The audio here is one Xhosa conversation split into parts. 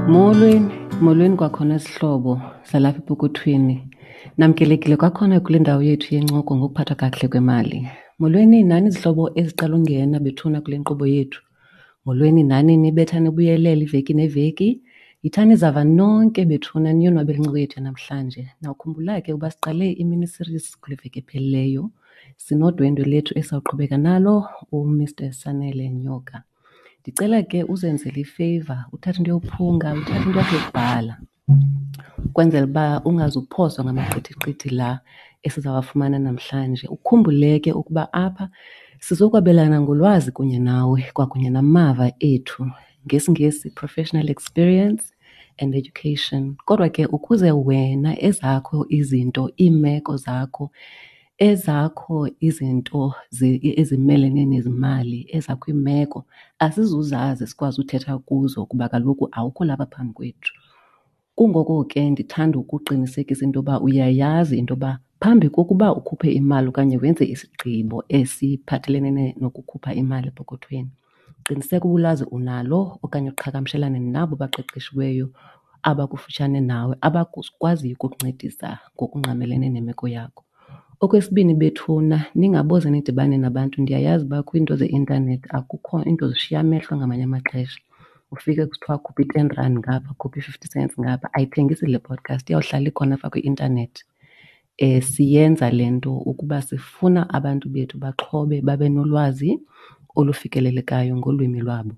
Molweni, molweni kwakhona zihlobo zalapha epokothweni. Namkelekile kwakhona kule ndawo yethu yencoko ngokuphathwa kakuhle kwemali. Molweni nani zihlobo eziqala ungena bethuna kule nkqubo yethu. Molweni nani nibetha nibuyelela iveki neveki. Yithani zava nonke bethuna niyonwabele incoko yethu yanamhlanje. Nawukhumbula ke uba siqale i-mini series kule veki ephelileyo. Sinodwendwe lethu esawuqhubeka nalo uMr Sanele Nyoka. Ndicela ke uzenzele ifeyiva uthathe into yophunga, uthathe into yakho yokubhala ukwenzela uba ungazuphoswa ngamaqithiqithi la esizawafumana namhlanje. Ukhumbule ke ukuba apha sizokwabelana ngolwazi kunye nawe kwakunye namava ethu, ngesiNgesi professional experience and education. Kodwa ke ukuze wena ezakho izinto, iimeko zakho, ezakho izinto ezimelene nezimali, ezakho iimeko asizuzazi sikwazi uthetha kuzo kuba kaloku awukho lapha phambi kwethu. Kungoko ke ndithanda ukuqinisekisa into yoba uyayazi into yoba phambi kokuba ukhuphe imali okanye wenze isigqibo esiphathelene nokukhupha imali epokothweni, qiniseka uba ulwazi unalo okanye uqhagamshelane nabo baqeqeshiweyo abakufutshane nawe abakwaziyo ukukuncedisa ngokungqamelene nemeko yakho. Okwesibini bethuna, ningaboze nidibane nabantu. Ndiyayazi uba kwiinto zeintanethi akukho iinto zishiya amehlo ngamanye amaxesha. Ufike kusithiwa khupha i-ten rand ngapha, khupha i-fifty cents ngapha. Ayithengisi le podcast, iyawuhlala ikhona apha kwi-intanethi. Siyenza le nto ukuba sifuna abantu bethu baxhobe babe nolwazi olufikelelekayo ngolwimi lwabo.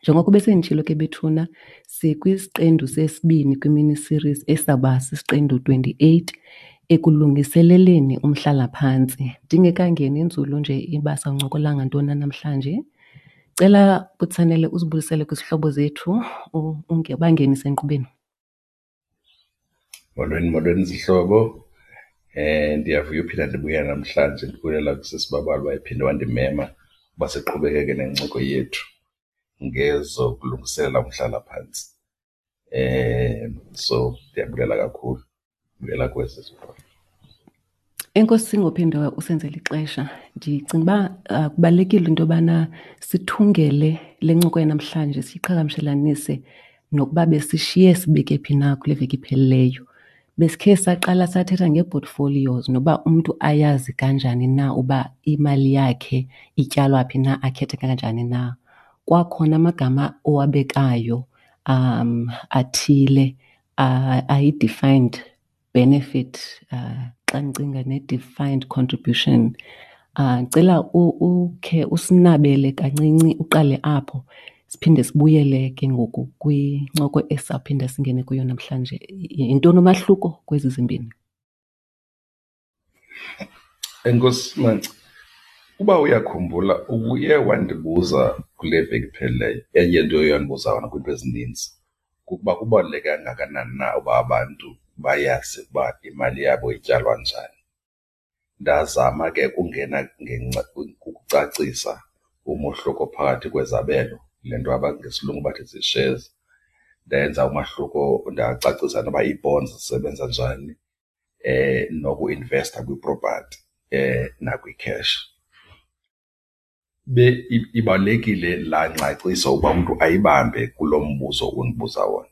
Njengoko besenditshilo ke bethuna, sikwisiqendu sesibini kwimini series esawuba sisiqendu 28 ekulungiseleleni umhlalaphantsi. Ndingekangeni nzulu nje uba sawuncokola ngantoni na namhlanje, cela Butsanele uzibulisele kwizihlobo zethu ubangenise enkqubeni. Molweni, molweni zihlobo. Ndiyavuya uphinda ndibuya namhlanje, ndibulela kusisi Babalwa ephinde wandimema uba siqhubekeke nencoko yethu ngezokulungiselela umhlalaphantsi. So ndiyabulela kakhulu, ndibulela kuwe sisi Babalwa. Enkosi ngophinde usenzele ixesha. Ndicinga uba kubalulekile into yobana sithungele le ncoko yanamhlanje siyiqhagamshelanise nokuba besishiye sibeke phi na kule veki iphelileyo. Besikhe saqala sathetha ngee-portfolios noba umntu ayazi kanjani na uba imali yakhe ityalwa phi na, akhethe kanjani na. Kwakhona amagama owabekayo athile ayi-defined benefit, xa ndicinga ne-defined contribution. Ndicela ukhe usinabele kancinci uqale apho siphinde sibuyele ke ngoku kwincoko esizawuphinda singene kuyo namhlanje. Yintoni umahluko kwezi zimbini? Enkosi, Manci. Uba uyakhumbula ubuye wandibuza kule veki iphelileyo, enye into oye wandibuza yona kwiinto ezininzi kukuba kubaluleke kangakanani na uba abantu bayazi ukuba imali yabo ityalwa njani. Ndazama ke ukungena ukucacisa umohluko phakathi kwezabelo, le nto ngesilungu bathi zii-shares. Ndenza umahluko ndacacisa noba ii-bonds zisebenza njani, nokuinvesta kwipropathi nakwi-cash. Ibalulekile laa ngcaciso uba umntu ayibambe kulo mbuzo undibuza wona.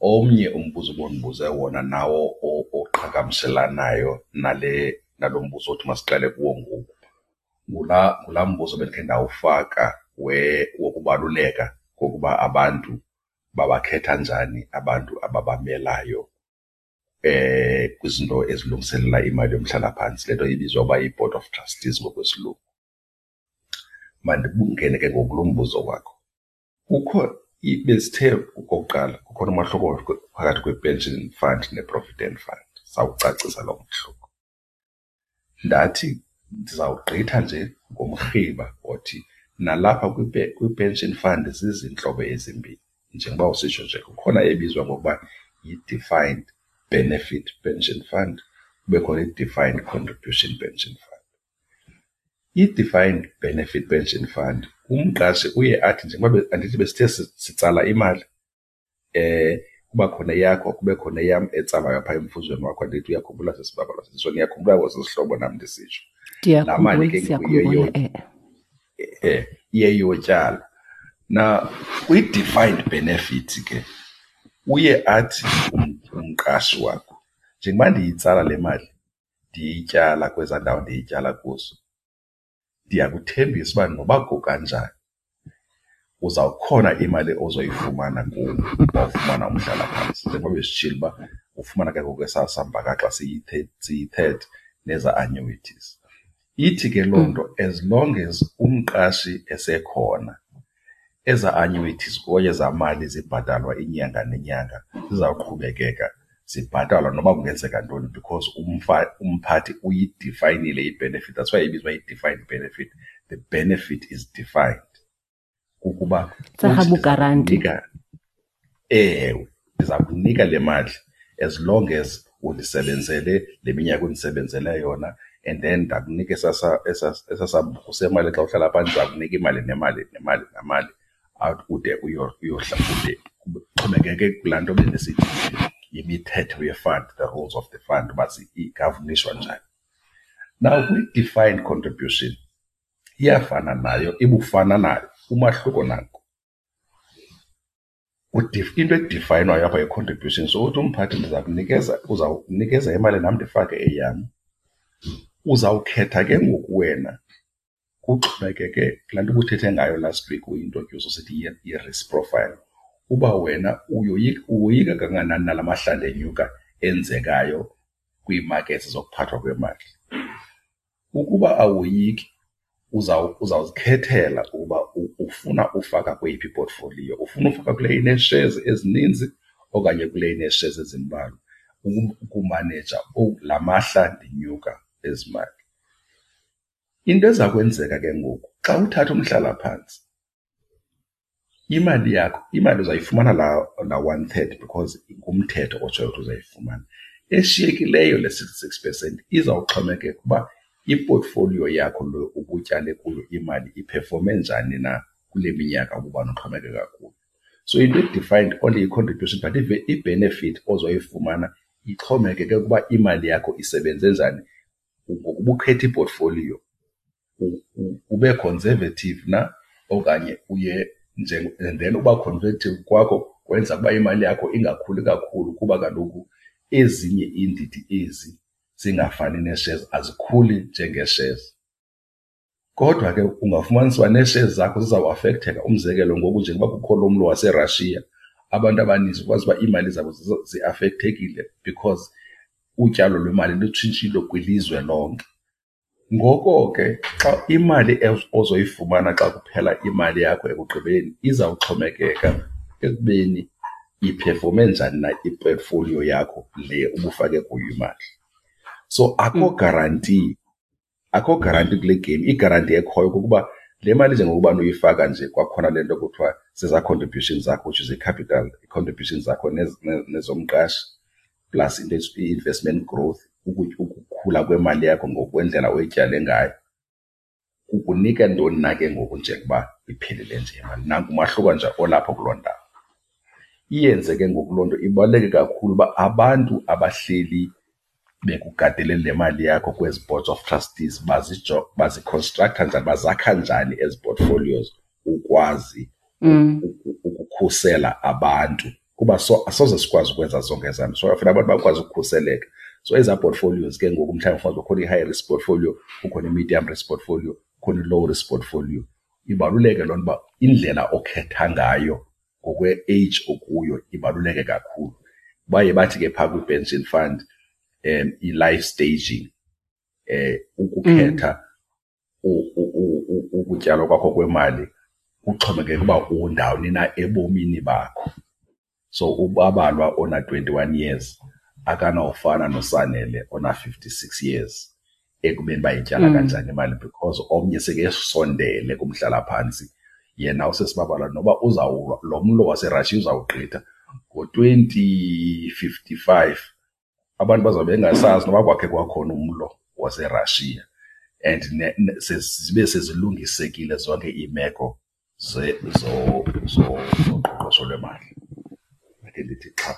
Omnye umbuzo ubundibuze wona nawo oqhagamshelanayo nale nalo mbuzo othi masiqale kuwo ngoku ngulaa mbuzo bendikhe ndawufaka wokubaluleka kokuba abantu babakhetha njani abantu ababamelayo kwizinto ezilungiselela imali yomhlalaphantsi, le nto ibizwa uba yi-board of trustees ngokwesilungu. Mandingene ke ngoku kulo mbuzo wakho. Kukho besithe okokuqala kukhona umahluko phakathi kwe-pension fund ne-provident fund, sawucacisa loo mehluko. Ndathi ndizawugqitha nje ngomrhiba othi nalapha kwi-pension fund zizintlobo ezimbini. Njengoba usitsho nje kukhona ebizwa ngokuba yi-defined benefit pension fund, kube khona i-defined contribution pension fund. I-defined benefit pension fund umqashi uye athi njengoba andithi besithe sitsala imali, kuba khona eyakho kube khona eyam etsalwayo phaa emfuzweni wakho, andithi uyakhumbula sisi Babalwa? So niyakhumbula kwesi sihlobo nam ndisitsho. Laa mali ke Siyakhumbula, iye iyotyalwa. Na kwi-defined benefit ke Uye athi umqashi wakho, njengoba ndiyitsala le mali ndiyityala kwezaa ndawo ndiyityala kuzo, ndiyakuthembisa uba noba kukanjani uzawukhona imali ozoyifumana kum wawufumana umhlalaphantsi. Njengoba besitshilo uba ufumana ke ngoku esaa sambakaxa siyi-third nezaa annuities. Ithi ke loo nto as long as umqashi esekhona, ezaa annuities okanye ezaa mali zibhatalwa inyanga nenyanga zizawuqhubekeka zibhatalwa noba kungenzeka ntoni because umphathi uyidifayinile i-benefit. That's why ibizwa i-defined benefit. The benefit is defined. Kukuba uthi ewe, ndiza kunika le mali as long as undisebenzele le minyaka undisebenzele yona, and then ndakunika esaa sambuku semali xa uhlala phantsi, ndiza kunika imali nemali nemali nemali ude uyohla ude kuxhomekeke kulaa nto bendisithi yimithetho ye-fund, the rules of the fund, uba igavunishwa njani. Now kwi-defined contribution iyafana nayo, ibufana nayo, umahluko nanku. Into edifayinwayo apha yi-contribution. So uthi umphathi ndiza kunikeza, uzawunikeza imali nam ndifake eyam. Uzawukhetha ke ngoku wena, kuxhomekeke kulaa nto ubuthethe ngayo last week uyi-introduce usithi yi-risk profile, uba wena uyoyika kangakanani na la mahlandenyuka enzekayo kwii-markets zokuphathwa kwemali. Ukuba awoyiki, uzawuzikhethela ukuba ufuna ufaka kweyiphi iportfolio. Ufuna ufaka kule inee-shares ezininzi okanye kule inee-shares ezimbalwa, ukumaneja la mahla ndinyuka ezimali. Into eza kwenzeka ke ngoku xa uthatha umhlalaphantsi, imali yakho, imali uzayifumana laa one third because ngumthetho otshoyo ukuthi uzayifumana. Eshiyekileyo le 66% izawuxhomekeka uba iportfolio yakho lo ubutyale kuyo imali iphefome njani na kule minyaka ububana uxhomekeka kuyo. So into e-defined only yi-contribution, but i-benefit ozoyifumana ixhomekeke ukuba imali yakho isebenze njani ngokuba ukhetha iportfolio, ube conservative na okanye uye nje. And then uba conservative kwakho kwenza ukuba imali yakho ingakhuli kakhulu, kuba kaloku ezinye iindidi ezi zingafani nee-shares azikhuli njengee-shares. Kodwa ke ungafumanisa uba nee-shares zakho zizawuafektheka. Umzekelo, ngoku njengoba kukho lo mlo waseRussia, abantu abaninzi ukwazi uba iimali zabo ziafekthekile because utyalo lwemali lutshintshile kwilizwe lonke. Ngoko ke xa imali ozoyifumana xa kuphela imali yakho ekugqibeleni izawuxhomekeka ekubeni iphefome njani na iportfolio yakho le ubufake kuyo imali. So akho guarantee, akho guarantee kule game. I-guarantee ekhoyo kukuba le mali njengokuba uyifaka nje, kwakhona le nto kuthiwa zezaa contributions zakho, which is i-capital, i-contributions zakho nezomqashi plus into i-investment growth, ukukhula kwemali yakho ngokwendlela oyityale ngayo, kukunika ntoni na ke ngoku njengoba iphelile nje imali. Nanku umahluko nje olapho kuloo ndawo. Iyenze ke ngoku loo nto ibaluleke kakhulu uba abantu abahleli bekugadele le mali yakho kwezi boards of trustees baziconstructa njani, bazakha njani ezi portfolios ukwazi ukukhusela abantu, kuba so asoze sikwazi ukwenza zonke ezaa nto. So kufuneka abantu bakwazi ukukhuseleka. So ezaa portfolios ke ngoku mhlawumbi ufumanise kukhona i-high risk portfolio, kukhona i-medium risk portfolio, kukhona i-low risk portfolio. Ibaluleke loo nto uba indlela okhetha ngayo ngokwe-age okuyo ibaluleke kakhulu. Baye bathi ke phaa kwi-pension fund i-life staging, ukukhetha ukutyalwa kwakho kwemali kuxhomekeke uba undawoni na ebomini bakho. So uBabalwa ona-21 years akanawufana noSanele ona-56 years ekubeni bayityala kanjani imali, because omnye sekesondele kumhlalaphantsi, yena usesiBabalwa noba uzawulwa lo mlo waseRussia uzawugqitha ngo-2055, abantu bazawube bengasazi noba kwakhe kwakhona umlo waseRussia and zibe sezilungisekile zonke iimeko zoqoqosho lwemali. Ake ndithi xha.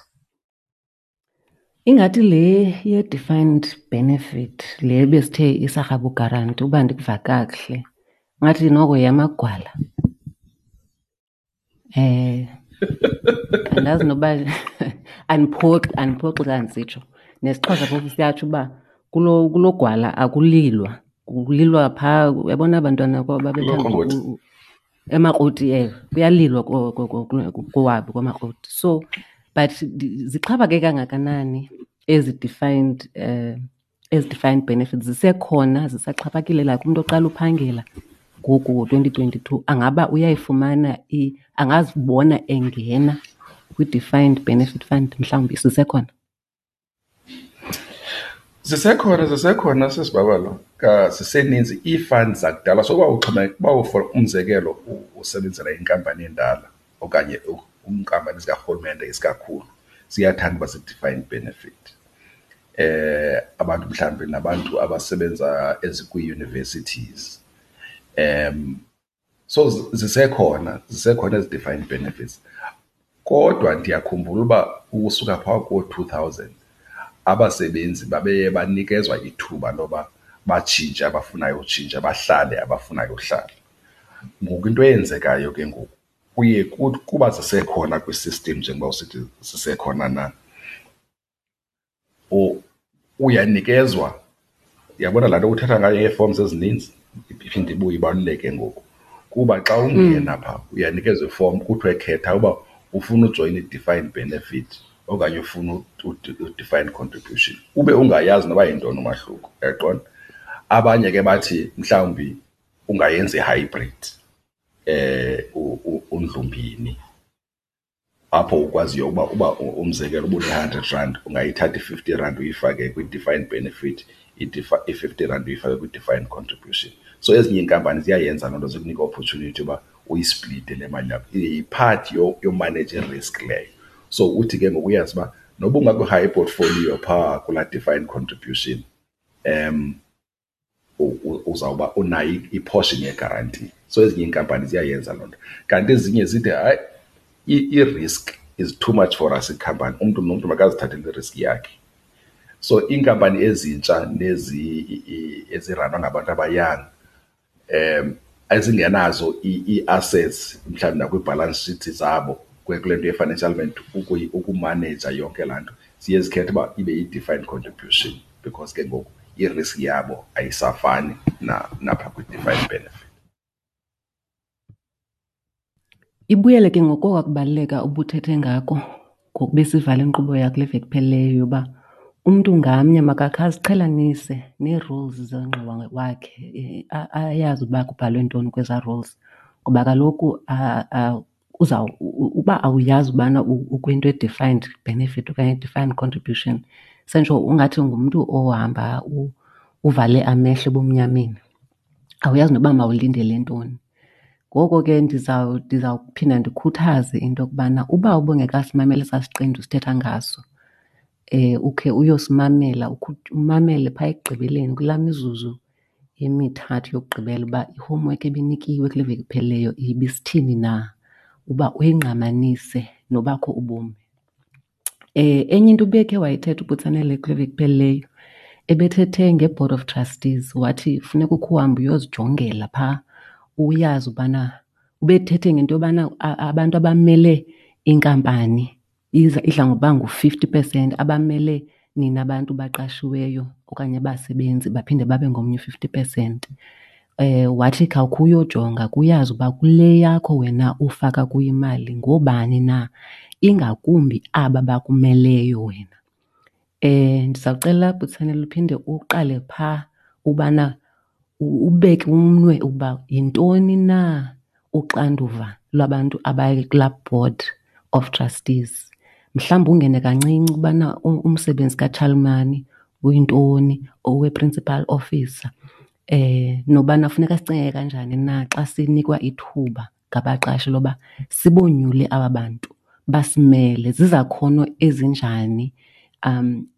Ingathi le ye-defined benefit le besithe isarhabu guarantee, uba ndikuva kakuhle, ngathi noko yamagwala. Andazi noba andiphoxi, andiphoxi xa ndisitsho. NesiXhosa phofu siyatsho uba kulo gwala akulilwa, kulilwa phaa. Uyabona abantwana babethanda emakroti, ewe, kuyalilwa kowabo kwamakroti. So but zixhaphake kangakanani ezi defined ezi defined benefits? Zisekhona, zisaxhaphakile? Like umntu oqala uphangela ngoku ngo-2022 angaba uyayifumana, angazibona engena kwi-defined benefit fund mhlawumbi, zisekhona? Zisekhona, zisekhona sisibabalo, ziseninzi ii-funds zakudala. So uba uxhomekeka, uba for umzekelo usebenzela inkampani endala okanye iinkampani zikarhulumente isikakhulu, ziyathanda uba zii-defined benefit. Abantu mhlawumbi nabantu abasebenza ezikwii-universities. So zisekhona, zisekhona ezi defined benefits. Kodwa ndiyakhumbula uba ukusuka phaa koo-2000 abasebenzi babeye banikezwa ithuba loba batshintshe abafunayo utshintsha, bahlale abafunayo uhlala. Ngoku into eyenzekayo ke ngoku kuye kuba zisekhona kwi-system njengoba usithi zisekhona na, uyanikezwa, uyabona laa nto uthetha ngayo yee-forms ezininzi iphinde ibuye ibaluleke ngoku. Kuba xa ungena phaa uyanikezwa ifomu kuthiwe khetha uba ufuna ujoyina i-defined benefit okanye ufuna u-defined contribution, ube ungayazi noba yintoni umahluko, uyaqonda? Abanye ke bathi mhlawumbi ungayenza i-hybrid, undlumbini, apho ukwaziyo uba umzekelo uba une-hundred rand ungayithatha i-50 rand uyifake kwi-defined benefit, i-50 rand uyifake kwi-defined contribution. So ezinye iinkampani ziyayenza loo nto, zikunika i-opportunity yoba uyisplite le mali yakho. Yiphathi yomaneja i-risk leyo. So uthi ke ngoku uyazi uba noba ungakwi-high portfolio phaa kulaa defined contribution, uzawuba unayo i-portion yegaranti. So ezinye iinkampani ziyayenza loo nto. Kanti ezinye zithi hayi, i-risk is too much for us ikhampani, umntu nomntu makazithathele i-risk yakhe. So iinkampani ezintsha nezi eziranwa ngabantu abayanga, ezingenazo ii-assets mhlawumbi nakwi-balance sheet zabo kule nto ye-financial ukumaneja yonke laa nto, ziye zikhethe uba ibe yi-defined contribution because ke ngoku i-risk yabo ayisafani napha kwi-defined benefit. Ibuyele ke ngoku kubaluleka ubuthethe ngako ngoku besivala inkqubo yakule veki iphelileyo yoba umntu ngamnye makakhe aziqhelanise nee-rules zengxowa wakhe, ayazi uba kubhalwe ntoni kwezaa rules. Ngoba kaloku uba awuyazi ubana ukwinto e-defined benefit okanye defined contribution, sentsho ungathi ungumntu ohamba uvale amehlo ebumnyameni, awuyazi noba mawulindele ntoni. Ngoko ke ndizawuphinda ndikhuthaze into yokubana uba ubungekasimameli esaa siqendu sithetha ngaso, ukhe uyosimamela, umamele phaa ekugqibeleni kulaa mizuzu emithathu yokugqibela uba i-homework ebinikiwe kule veki iphelileyo ibisithini na, uba uyingqamanise nobakho ubomi. Enye into ubekhe wayithetha uButsanele kule veki iphelileyo, ebethethe ngeBoard of Trustees, wathi funeka ukhe uhambe uyozijongela phaa, uyazi ubana ubethethe ngento yobana abantu abamele inkampani idla ngokuba ngu-50%, abamele nina bantu baqashiweyo okanye abasebenzi baphinde babe ngomnye u-50%. Wathi khawukhe uyojonga kuyazi uba kule yakho wena ufaka kuyo imali ngoobani na, ingakumbi aba bakumeleyo wena. Ndizawucela Butsanele uphinde uqale phaa ubana ubeke umnwe ukuba yintoni na uxanduva lwabantu abakulaa board of trustees. Mhlawumbi ungene kancinci ubana umsebenzi katshalomani uyintoni, owe-principal officer, nobana funeka sicinge kanjani na xa sinikwa ithuba ngabaqashi loba sibonyule aba bantu basimele, zizakhono ezinjani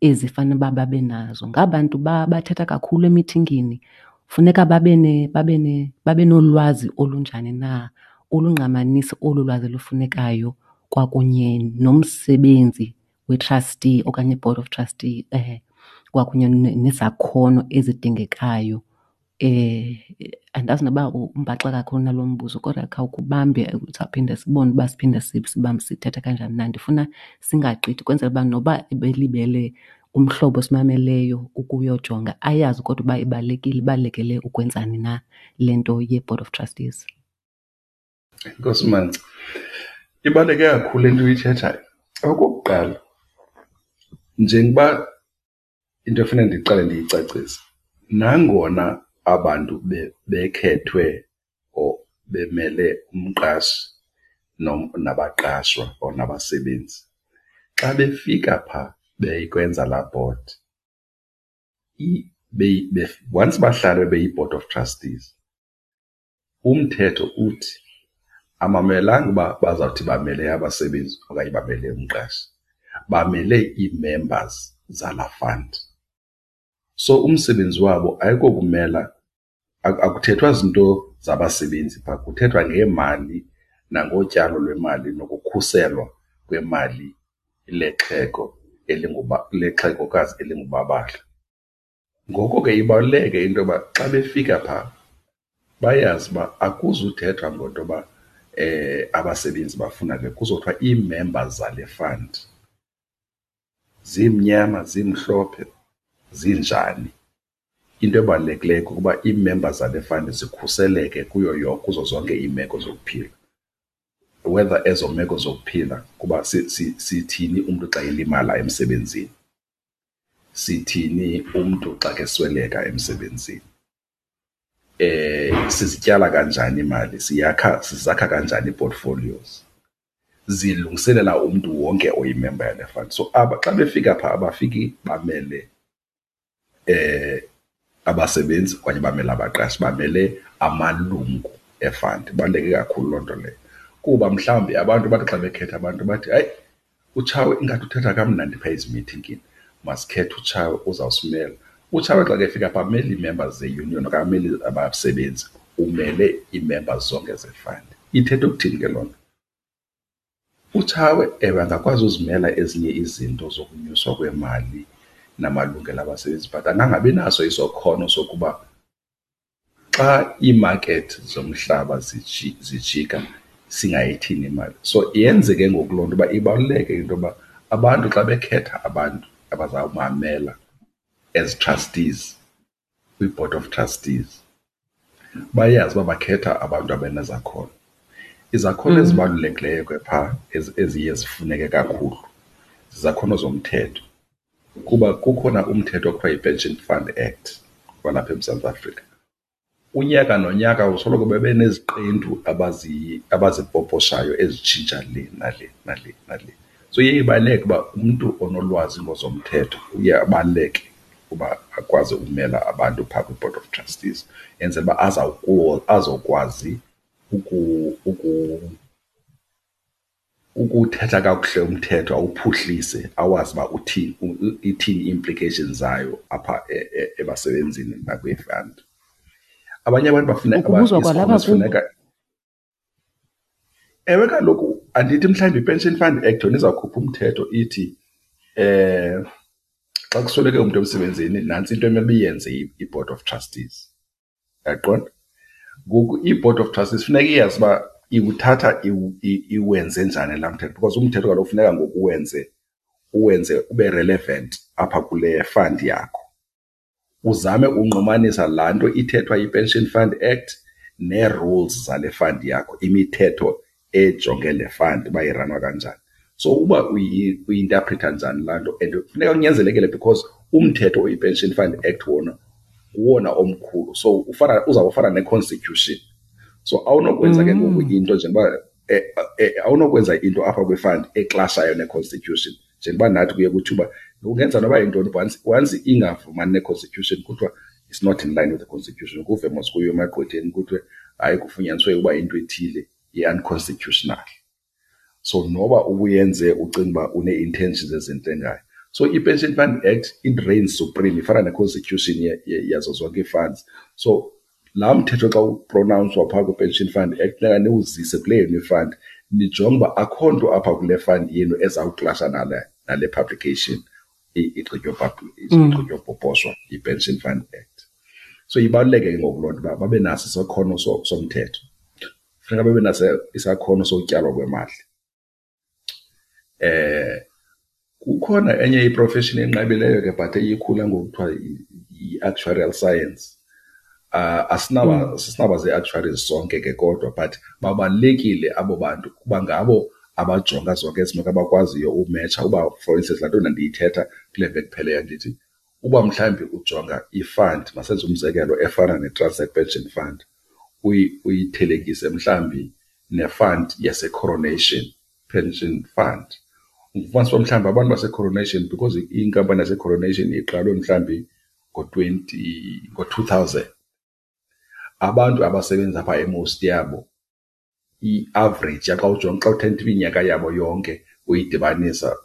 ezifanele uba babe nazo. Ngabantu bathetha kakhulu emithingini, funeka babe nolwazi olunjani na, olungqamanisa olu lwazi lufunekayo kwakunye nomsebenzi we-trustee okanye i-board of trustee, kwakunye nezakhono ezidingekayo Andazi noba umbaxa kakhulu nalo mbuzo kodwa khawukubambe, sawuphinda sibone uba siphinde sibambe sithetha kanjani na. Ndifuna singagqithi kwenzela uba noba ebelibele umhlobo osimameleyo ukuyojonga ayazi kodwa uba ibalulekile, ibalulekele ukwenzani na le nto ye-board of trustees. Enkosi, Manci. Ibaluleke kakhulu le nto uyithethayo. Okokuqala, njengoba into efuneka ndiqale ndiyicacise, nangona abantu bekhethwe or bemele umqashi nabaqashwa or nabasebenzi, xa befika phaa beyikwenza laa board, once bahlala beyi-board of trustees, umthetho uthi amamelanga uba bazawuthi bamele abasebenzi okanye bamele umqashi, bamele ii-members zalaa fund. So umsebenzi wabo ayikokumela, akuthethwa zinto zabasebenzi phaa, kuthethwa ngeemali nangotyalo lwemali nokukhuselwa kwemali lexhego lexhegokazi elingubabala. Ngoko ke ibaluleke into yoba xa befika phaa bayazi uba akuzuthethwa ngento yoba abasebenzi bafuna le, kuzothiwa ii-members zale fund zimnyama, zimhlophe, zinjani. Into ebalulekileyo kukuba ii-members zale fund zikhuseleke kuyo kuzo zonke iimeko zokuphila. Whether ezo meko zokuphila kuba sithini umntu xa elimala emsebenzini, sithini umntu xa kesweleka emsebenzini, sizityala kanjani imali, siyakha sizakha kanjani ii-portfolios, zilungiselela umntu wonke oyimemba yale fund. So aba xa befika phaa abafiki bamele abasebenzi okanye bamele abaqashi, bamele amalungu e-fund. Ibaluleke kakhulu loo nto leyo kuba mhlawumbi abantu bathi xa bekhetha abantu bathi, hayi, uTshawe ingathi uthetha kamnandi phaa ezimithingini, masikhethe uTshawe uzawusimela. UTshawe xa kefika phaa amele ii-members ze-union okanye amele abasebenzi, umele ii-members zonke ze-fund. Ithetha ukuthini ke loo nto? UTshawe ewe angakwazi uzimela ezinye izinto zokunyuswa kwemali namalungelo abasebenzi, but angangabi naso isakhono sokuba xa iimakethi zomhlaba zijika singayithini imali. So yenze ke ngoku loo nto uba ibaluleke into yoba abantu xa bekhetha abantu abazawubamela as trustees kwi-board of trustees bayazi uba bakhetha abantu abanezakhono. Izakhono ezibalulekileyo ke phaa eziye zifuneke kakhulu zizakhono zomthetho, kuba kukhona umthetho okuthiwa yi-Pension Fund Act walapha eMzantsi Afrika. Unyaka nonyaka usoloko bebe neziqendu abazipoposhayo ezitshintsha le nale nale nale. So iye ibaluleke uba umntu onolwazi ngozomthetho uye abaluleke uba akwazi ukumela abantu phaa kwi-board of trustees, enzele uba azokwazi ukuthetha kakuhle umthetho, awuphuhlise, awazi uba uthini, ithini i-implications zayo apha ebasebenzini nakwii-fund. Abanye abantu bafuna Ukubuzwa kwalapha kubo. Sifuneka. Ewe kaloku, andithi mhlawumbi i-Pension Fund Act yona izawukhupha umthetho ithi xa kusweleke umntu emsebenzini nantsi into emele iyenze i-board of trustees. Uyaqonda? Ngoku i-board of trustees funeka iyazi uba iwuthatha iwenze njani laa mthetho, because umthetho kaloku funeka ngoku uwenze ube relevant apha kule fund yakho. Uzame unqumanisa laa nto ithethwa yi-Pension Fund Act nee-rules zale fund yakho, imithetho ejonge le fund uba iranwa kanjani. So uba uyi-interpreta njani laa nto, and funeka kunyanzelekile because umthetho oyi-Pension Fund Act wona nguwona omkhulu, so ufana uzawufana ne-constitution. So awunokwenza ke ngoku into njengoba awunokwenza into apha kwi-fund eklashayo ne-constitution, njengoba nathi kuye kuthiwa ungenza noba yintoni, once ingavumani ne-constitution kuthiwa it's not in line with the constitution. Kuve mos kuyo emagqwetheni kuthiwe hayi, kufunyaniswe uba into ethile i-unconstitutional. So noba ubuyenze ucinga uba une-intentions ezintle ngayo. So i-Pension Fund Act it reigns supreme, ifana ne-constitution yazo zonke ii-funds. So laa mthetho xa upronounswa phaa kwi-Pension Fund Act funeka niwuzise kule yenu i-fund, nijonge uba akho nto apha kule fund yenu ezawuklasha nale publication igqitywa poposhwa yi-Pension Fund Act. So ibaluleke ke ngoku loo nto uba babe naso isakhono somthetho, funeka babe naso isakhono sokutyalwa kwemali. Kukhona enye iprofeshini enqabileyo ke but eyikhula ngoku kuthiwa yi-actuarial science. Asinaba asinaba zii-actuaries sonke ke kodwa but babalulekile abo bantu kuba ngabo abajonga zonke ezi meko, abakwaziyo umetsha uba for instance laa nto ndandiyithetha kule veki ipheleyo ndithi uba mhlawumbi ujonga i-fund, masenze umzekelo efana neTransnet Pension Fund, uyithelekise mhlawumbi ne-fund yaseCoronation Pension Fund, ufumanisa uba mhlawumbi abantu baseCoronation, because inkampani yaseCoronation iqalwe mhlawumbi ngo-twenty, ngo-two thousand, abantu abasebenza phaa e-most yabo i-average xa ujonga, xa uthetha iminyaka yabo yonke uyidibanisa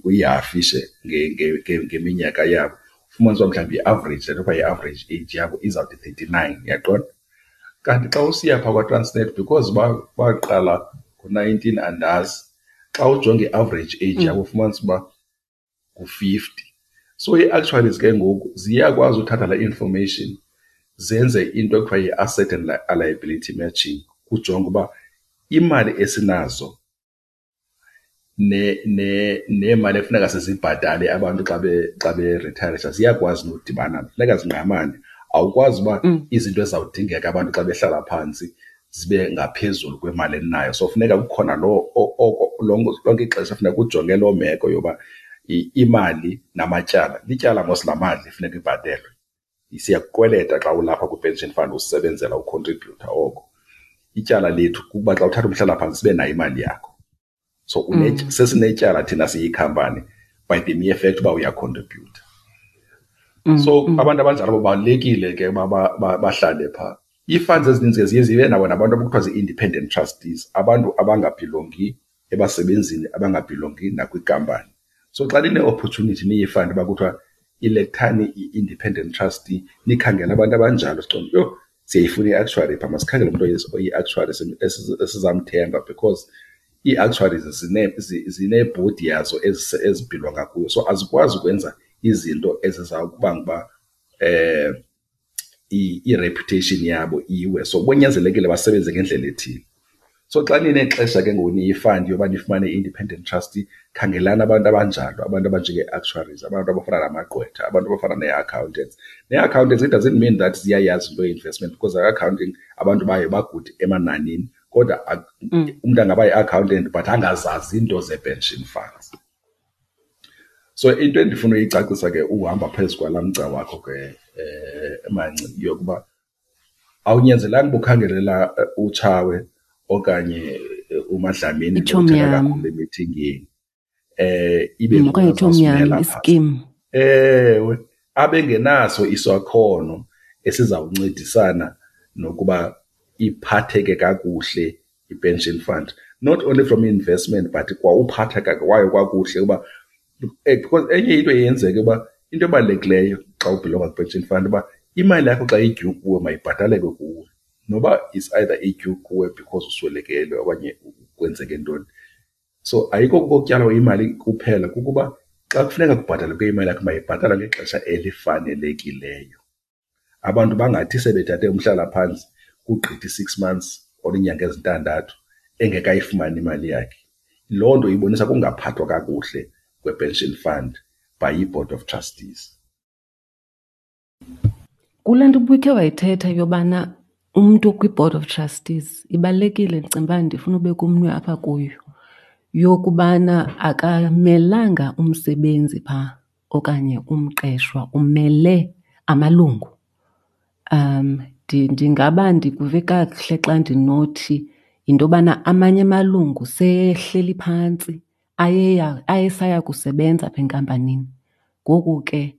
uyihafishe ngeminyaka yabo, ufumanisa uba mhlawumbi i-average, le nto kuthiwa yi-average age yabo izawuthi 39, uyaqonda? Kanti xa usiya phaa kwaTransnet, because baqala ngo-nineteen andazi, xa ujonga i-average age yabo ufumanisa uba ngu-50. So ii-actuaries ke ngoku ziyakwazi uthatha laa information zenze into ekuthiwa yi-asset and liability matching, kujonge uba imali esinazo neemali ekufuneka sizibhatale abantu xa berithayarisha ziyakwazi nodibana, funeka zingqamane. Awukwazi uba izinto ezizawudingeka abantu xa behlala phantsi zibe ngaphezulu kwemali eninayo. So funeka kukhona loo oko lonke ixesha funeka ujonge loo meko yoba imali namatyala. Lityala mos laa mali funeka ibhatelwe. Siyakukweleta xa ulapha kwi-pension fund usebenzela ukhontribhuyutha oko. Ityala lethu kukuba xa uthatha umhlalaphantsi sibe nayo imali yakho. So sesinetyala thina siyikhampani by the mere fact uba uyakhontribhuyutha. So abantu abanjalo babalulekile ke uba bahlale phaa. Ii-funds ezininzi ke ziye zibe nabo nabantu abakuthiwa zii-independent trustees, abantu abangabhilongi ebasebenzini, abangabhilongi nakwinkampani. So xa nine-opportunity niyi-fund uba kuthiwa ilekthani i-independent trustee, nikhangele abantu abanjalo. Siqonde, yho, siyayifuna i-actuary phaa, masikhangele umntu oyi-actuary esizamthemba, because ii-actuaries zineebhodi yazo ezibhilonga kuyo. So azikwazi ukwenza izinto ezizawukubanga uba i-reputation yabo iwe. So kunyanzelekile basebenze ngendlela ethile. So xa ninexesha ke ngoku niyi-fund yoba nifumane i-independent trustee, khangelani abantu abanjalo, abantu abanjengee-actuaries, abantu abafana namagqwetha, abantu abafana nee-accountants. Nee-accountants, it doesn't mean that ziyayazi into ye-investment, because accounting abantu bayo bagude emananini, kodwa umntu angaba yi-accountant but angazazi iinto zee-pension funds. So into endifuna uyicacisa ke uhamba phezu kwalaa mgca wakho ke Manci, yokuba awunyanzelanga uba ukhangelela uTshawe okanye uMadlamini Itshomi yam. kakhulu emithingini. Ibe Okanye itshomi yam, iskim. Ewe, abengenaso isakhono esizawuncedisana nokuba iphatheke kakuhle i-pension fund, not only from investment but kwa uphatheka kwayo kwakuhle uba because enye into eyenzeka uba into ebalulekileyo xa ubhilonga kwi-pension fund uba imali yakho xa idue kuwe mayibhataleke kuwe, noba is either idue kuwe because uswelekelwe okanye kwenzeke ntoni. So ayikho kokutyalwa imali kuphela, kukuba xa kufuneka kubhatalwe imali yakho mayibhatalwe ngexesha elifanelekileyo. Abantu bangathi sebethathe umhlalaphantsi kugqitha i-6 months or iinyanga ezintandathu engekayifumani imali yakhe. Loo nto ibonisa kungaphathwa kakuhle kwe-pension fund by i-board of trustees. Kule nto ubukhe wayithetha yobana umntu kwi-board of trustees ibalulekile, ndicinga uba ndifuna ubeka umnwe apha kuyo, yokubana akamelanga umsebenzi phaa okanye umqeshwa, umele amalungu. Ndingaba ndikuve kakuhle xa ndinothi yinto yobana amanye amalungu seyehleli phantsi, ayesaya kusebenza apha enkampanini. Ngoku ke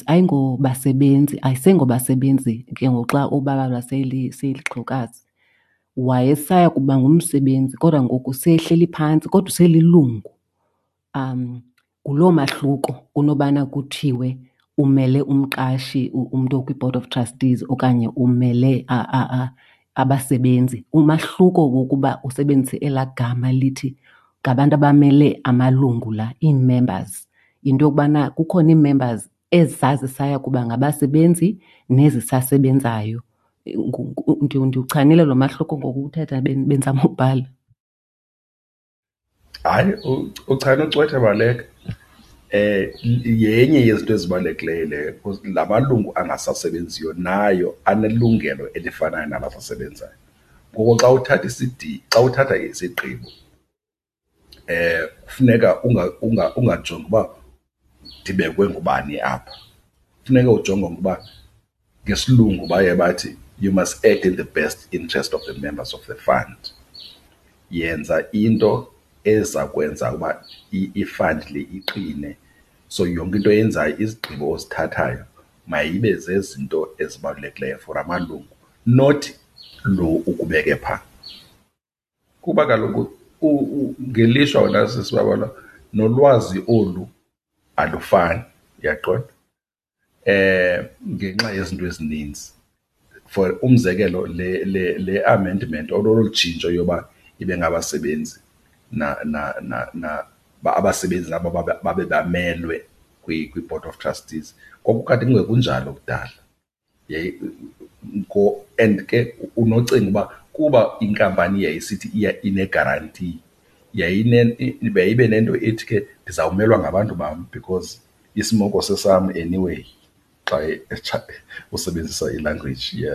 ayingobasebenzi, ayisengobasebenzi ke ngoku xa ubalwa seyilixhewukazi. Wayesaya kuba ngumsebenzi kodwa ngoku seyehleli phantsi kodwa uselilungu. Nguloo mahluko kunobana kuthiwe umele umqashi, umntu okwi-board of trustees okanye umele abasebenzi. Umahluko wokuba usebenzise elaa gama lithi ngabantu abamele amalungu la, ii-members, yinto yokubana kukhona ii-members ezazisaya kuba ngabasebenzi nezisasebenzayo. Ndiwuchanile lo mahluko ngokuthetha bendizama ubhala. Hayi, uchane ucwethe baleka. Yenye yezinto ezibalulekileyo leyo because la malungu angasasebenziyo nayo anelungelo elifanayo nalabasebenzayo. Ngoko xa uthatha xa uthatha isigqibo kufuneka ungajongi uba ndibekwe ngubani apha. Funeka ujonge ukuba ngesilungu baye bathi you must act in the best interest of the members of the fund. Yenza into eza kwenza uba i-fund le iqine. So yonke into oyenzayo, izigqibo ozithathayo mayibe zezinto ezibalulekileyo for amalungu, not lo ukubeke phaa. Kuba kaloku ngelishwa wena sisi Babalwa nolwazi olu alufani, uyaqonda, ngenxa yezinto ezininzi. For umzekelo le le le amendment or olu tshintsho yoba ibe ngabasebenzi na na na na abasebenzi nabo babe bamelwe kwi-board of trustees kwakukade kungekunjalo kudala. And ke unocinga uba kuba inkampani yayisithi inegaranti, yayibe nento ethi ke ndizawumelwa ngabantu bam because isimoko sesam anyway, xa usebenzisa ilanguage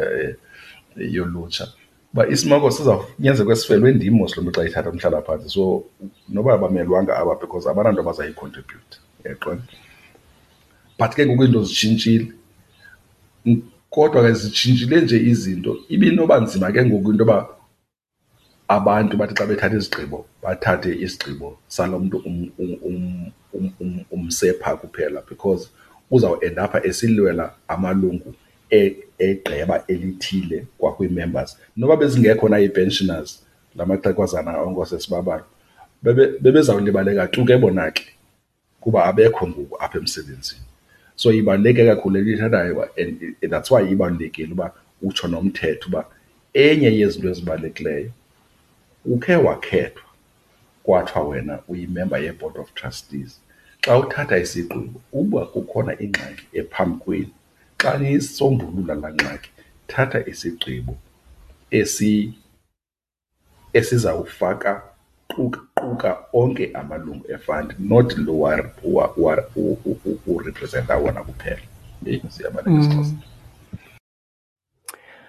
yolutsha. Uba isimoko sizawunyanzeleka sifelwe ndim mos lo mntu xa ethatha umhlalaphantsi, so noba abamelwanga aba because abananto bazayikhontribhuyutha, uyaqonda? But ke ngoku izinto zitshintshile. Kodwa ke zitshintshile nje izinto, ibinoba nzima ke ngoku into yoba abantu bathi xa bethatha izigqibo bathathe isigqibo salo mntu umse phaa kuphela because uzawuendapha esilwela amalungu egqeba elithile kwakwii-members. Noba bezingekho na ii-pensioners, la maxhegwazana onke oosisi, bebezawulibaleka tu ke bona ke kuba abekho ngoku apha emsebenzini. So ibaluleke kakhulu le nto uyithethayo and that's why ibalulekile uba utsho nomthetho uba enye yezinto ezibalulekileyo ukhe wakhethwa kwathiwa wena uyimemba ye-board of trustees. Xa uthatha isigqibo uba kukhona ingxaki ephambi kwenu, xa niyisombulula laa ngxaki thatha isigqibo esizawufaka quka onke amalungu e-fund, not lo urepresenta wona kuphela. Heyi, siyabaleka isiXhosa.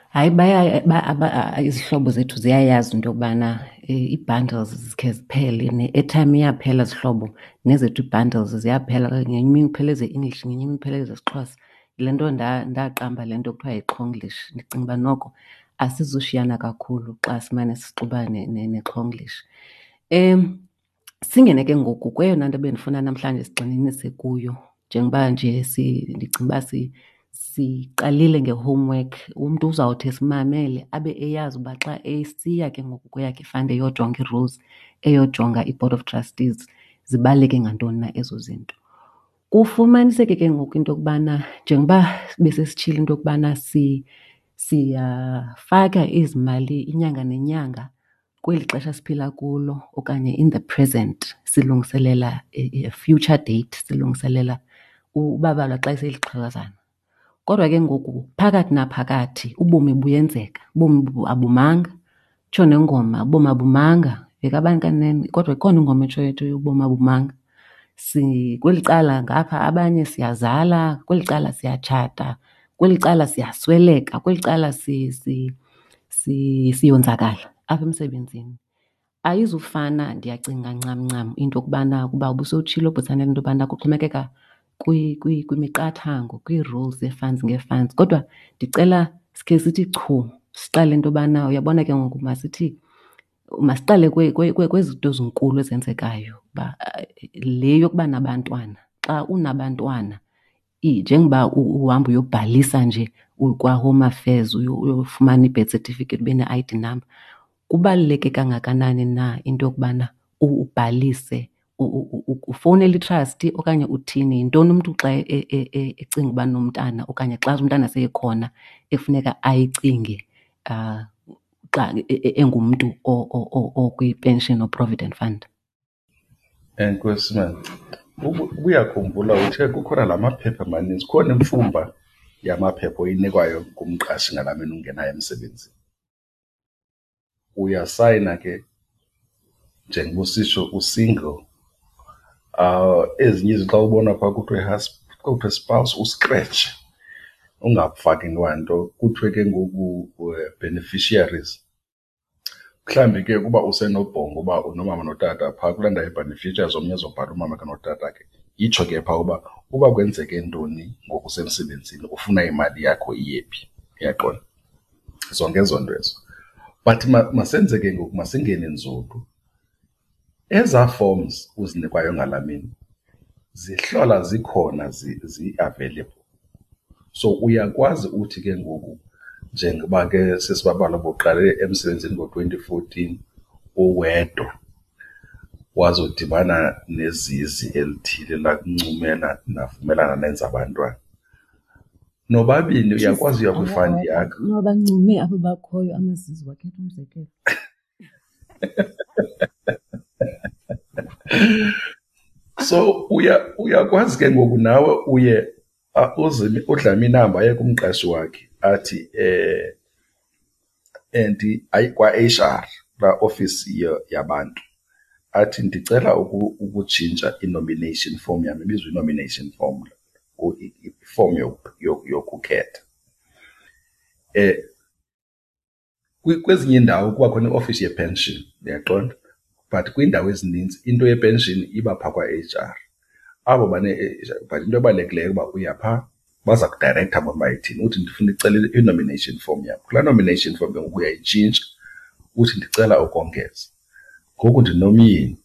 Hayi, izihlobo zethu ziyayazi into yokubana ii-bundles zikhe ziphele, ne-airtime iyaphela zihlobo, nezethu ii-bundles ziyaphela. Ngenye imini kuphela eze-English, ngenye imini kuphela ezesiXhosa. Yile nto ndaqamba le nto kuthiwa yiXhonglish. Ndicinga uba noko asizushiyana kakhulu xa simane sixuba neXhonglish. Singene ke ngoku kweyona nto bendifuna namhlanje sigxininise kuyo, njengoba nje ndicinga uba siqalile nge-homework. Umntu uzawuthi esimamele abe eyazi uba xa esiya ke ngoku kweyakhe i-fund eyojonga ii-rules, eyojonga i-board of trustees, zibaluleke ngantoni na ezo zinto. Kufumaniseke ke ngoku into yokubana njengoba besesitshilo into yokubana siyafaka ezi mali inyanga nenyanga kweli xesha siphila kulo okanye in the present, silungiselela a future date, silungiselela ubabalwa xa eselixhegwazana. Kodwa ke ngoku phakathi naphakathi ubomi buyenzeka, ubomi abumanga. Itsho nengoma, ubomi abumanga. Yekabani kanene, kodwa ikhona ingoma etshoyo ethi ubomi abumanga. Kweli cala ngapha abanye siyazala, kweli cala siyatshata, kweli cala siyasweleka, kweli cala siyonzakala apha emsebenzini. Ayizufana ndiyacinga ncam ncam into yokubana kuba ubusowutshilo Bhutsanele into yobana kuxhomekeka kwimiqathango, kwii-rules zee-funds ngee-funds. Kodwa ndicela sikhe sithi chu, siqale into yobana uyabona ke ngoku masithi masiqale kwezi zinto zinkulu ezenzekayo uba le yokuba nabantwana. Xa unabantwana njengoba uhamba uyobhalisa nje kwaHome Affairs uyofumana i-birth certificate ube ne-I_D number, kubaluleke kangakanani na into yokubana ubhalise, ufowunele i-trustee okanye uthini? Yintoni umntu xa ecinga uba nomntana okanye xa umntana seyekhona ekufuneka ayicinge xa engumntu okwi-pension or provident fund? Enkosi mani. Ubuyakhumbula uthe kukhona la maphepha maninzi, kukhona imfumba yamaphepha oyinikwayo ngumqashi ngalaa mini ungenayo emsebenzini. Uyasayina ke njengoba usitsho u-single. Ezinye izinto xa ubona phaa kuthiwe kuthiwe spouse uskretshe ungafaki kwanto. Kuthiwe ke ngoku beneficiaries. Mhlawumbi ke ukuba usenobhongo uba unomama notata phaa kulaa ndawo ye-beneficiaries omnye azobhala umamakhe notatakhe. Itsho ke phaa uba uba kwenzeke ntoni ngoku usemsebenzini ufuna imali yakho iye phi, uyaqonda? Zonke ezo nto ezo. But masenze ke ngoku, masingene nzulu. Ezaa forms uzinikwayo ngalaa mini zihlola zikhona zi-available. So uyakwazi uthi ke ngoku njengoba ke sesibabala ubuqale emsebenzini ngo-2014 uwedwa, wazodibana nezizi elithile lakuncumela navumelana nenza abantwana. Nobabini uyakwazi uya kwifandi yakho. Noba abo bakhoyo amazizi wakhetha umzekelo. So uyakwazi ke ngoku nawe uye uzime uDlamini ahambe aye kumqashi wakhe athi and ayi kwa-HR kulaa ofisi yabantu athi ndicela ukutshintsha i-nomination form yam, ibizwa i-nomination form, i-form yokukhetha. Kwezinye iindawo kuba khona iofisi yepension, uyaqonda? But kwiindawo ezininzi into yepension iba phaa kwa-HR. Abo but into ebalulekileyo uba uya phaa baza kudirektha bona uba ithini. Uthi ndifuna icela i-nomination form yam. Kulaa nomination form ke ngoku uyayitshintsha uthi ndicela ukongeza. Ngoku ndinomyeni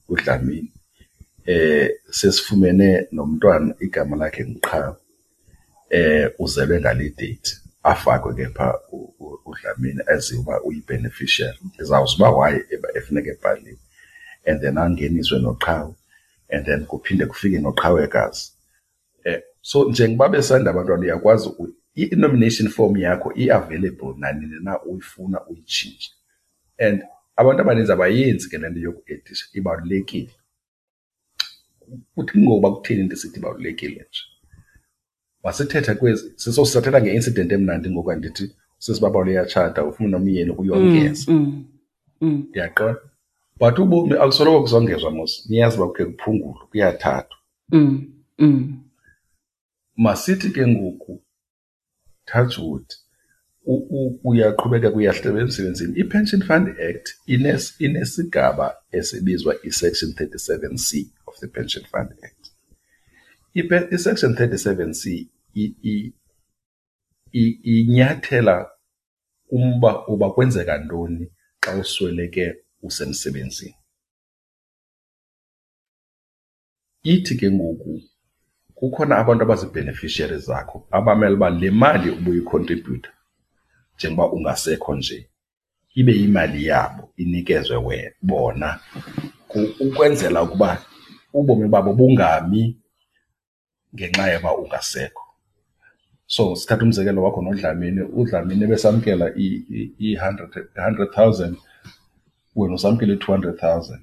uDlamini, sesifumene nomntwana igama lakhe nguQhawe, uzelwe ngale date. Afakwe ke phaa uDlamini aziwe uba uyi-beneficiary. Ndizawuza uba why efuneka ebhaliwe. And then angeniswe noQhawe, and then kuphinde kufike noQhawekazi. So njengoba besanda abantwana uyakwazi i-nomination form yakho i-available nanini na uyifuna uyitshintshe. And abantu abaninzi abayenzi ke le nto yokuedisha, ibalulekile. Kuthi ngoba kutheni ndisithi ibalulekile nje? Masithethe kwezi, sisathetha nge-incident emnandi ngoku, andithi sisibabalo uyatshata ufuna nomyeni uyongeza. Ndiyaqonda. But ubomi akusoloko kusongezwa mos, niyazi uba kukhe kuphungulwe, kuyathathwa. Masithi ke ngoku, touch wood, uyaqhubeka uyahleba emsebenzini. I-Pension Fund Act inesigaba esibizwa i-Section 37C of the Pension Fund Act. I-Section 37C inyathela umba uba kwenzeka ntoni xa usweleke usemsebenzini. Ithi ke ngoku kukhona abantu abazi-beneficiaries zakho abamele uba le mali ubuyikhontribhutha njengoba ungasekho nje ibe yimali yabo inikezwe bona ukwenzela ukuba ubomi babo bungami ngenxa yoba ungasekho. So sithatha umzekelo wakho noDlamini, uDlamini ebesamkela i-100,000, wena usamkela i-200,000.